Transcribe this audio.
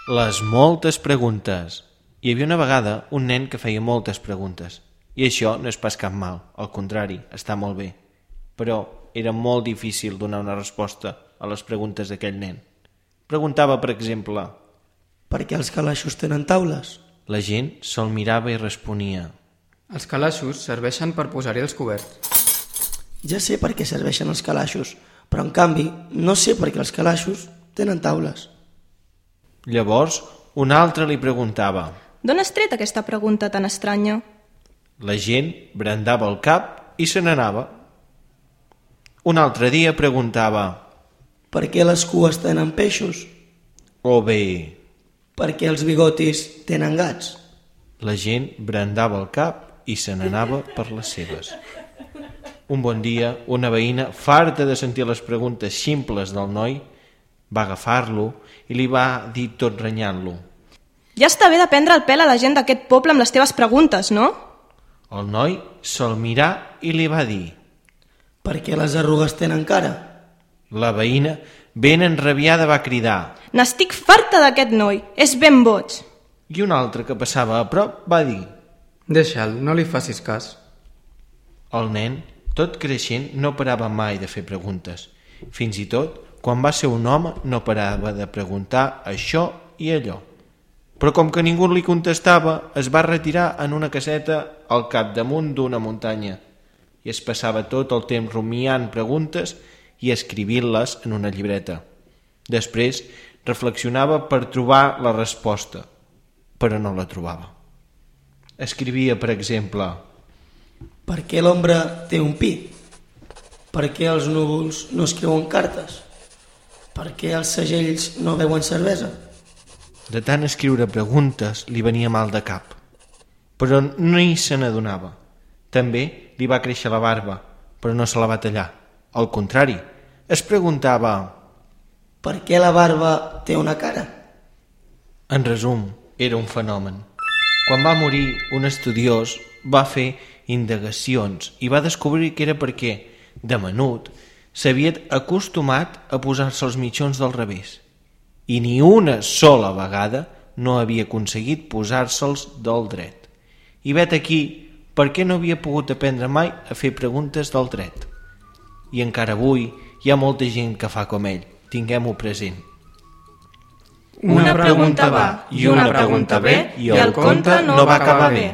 Les moltes preguntes. Hi havia una vegada un nen que feia moltes preguntes. I això no és pas cap mal, al contrari, està molt bé. Però era molt difícil donar una resposta a les preguntes d'aquell nen. Preguntava, per exemple... Per què els calaixos tenen taules? La gent se'l mirava i responia... Els calaixos serveixen per posar-hi els coberts. Ja sé per què serveixen els calaixos, però en canvi no sé per què els calaixos tenen taules. Llavors, un altre li preguntava... D'on has tret aquesta pregunta tan estranya? La gent brandava el cap i se n'anava. Un altre dia preguntava... Per què les cues tenen peixos? O bé... Per què els bigotis tenen gats? La gent brandava el cap i se n'anava per les seves. Un bon dia, una veïna, farta de sentir les preguntes ximples del noi, va agafar-lo i li va dir tot renyant-lo. Ja està bé de prendre el pèl a la gent d'aquest poble amb les teves preguntes, no? El noi se'l mirà i li va dir... Per què les arrugues tenen cara? La veïna, ben enrabiada, va cridar... N'estic farta d'aquest noi, és ben boig. I un altre que passava a prop va dir... Deixa'l, no li facis cas. El nen, tot creixent, no parava mai de fer preguntes. Fins i tot, quan va ser un home, no parava de preguntar això i allò. Però com que ningú li contestava, es va retirar en una caseta al capdamunt d'una muntanya i es passava tot el temps rumiant preguntes i escrivint-les en una llibreta. Després reflexionava per trobar la resposta, però no la trobava. Escrivia, per exemple... Per què l'ombra té un pi? Per què els núvols no escriuen cartes? Per què els segells no beuen cervesa? De tant escriure preguntes li venia mal de cap, però ni se n'adonava. També li va créixer la barba, però no se la va tallar. Al contrari, es preguntava... Per què la barba té una cara? En resum, era un fenomen. Quan va morir, un estudiós va fer indagacions i va descobrir que era perquè, de menut, s'havia acostumat a posar-se els mitjons del revés i ni una sola vegada no havia aconseguit posar-se'ls del dret. I vet aquí per què no havia pogut aprendre mai a fer preguntes del dret. I encara avui hi ha molta gent que fa com ell. Tinguem-ho present. Una pregunta va i una pregunta ve i el conte no va acabar bé.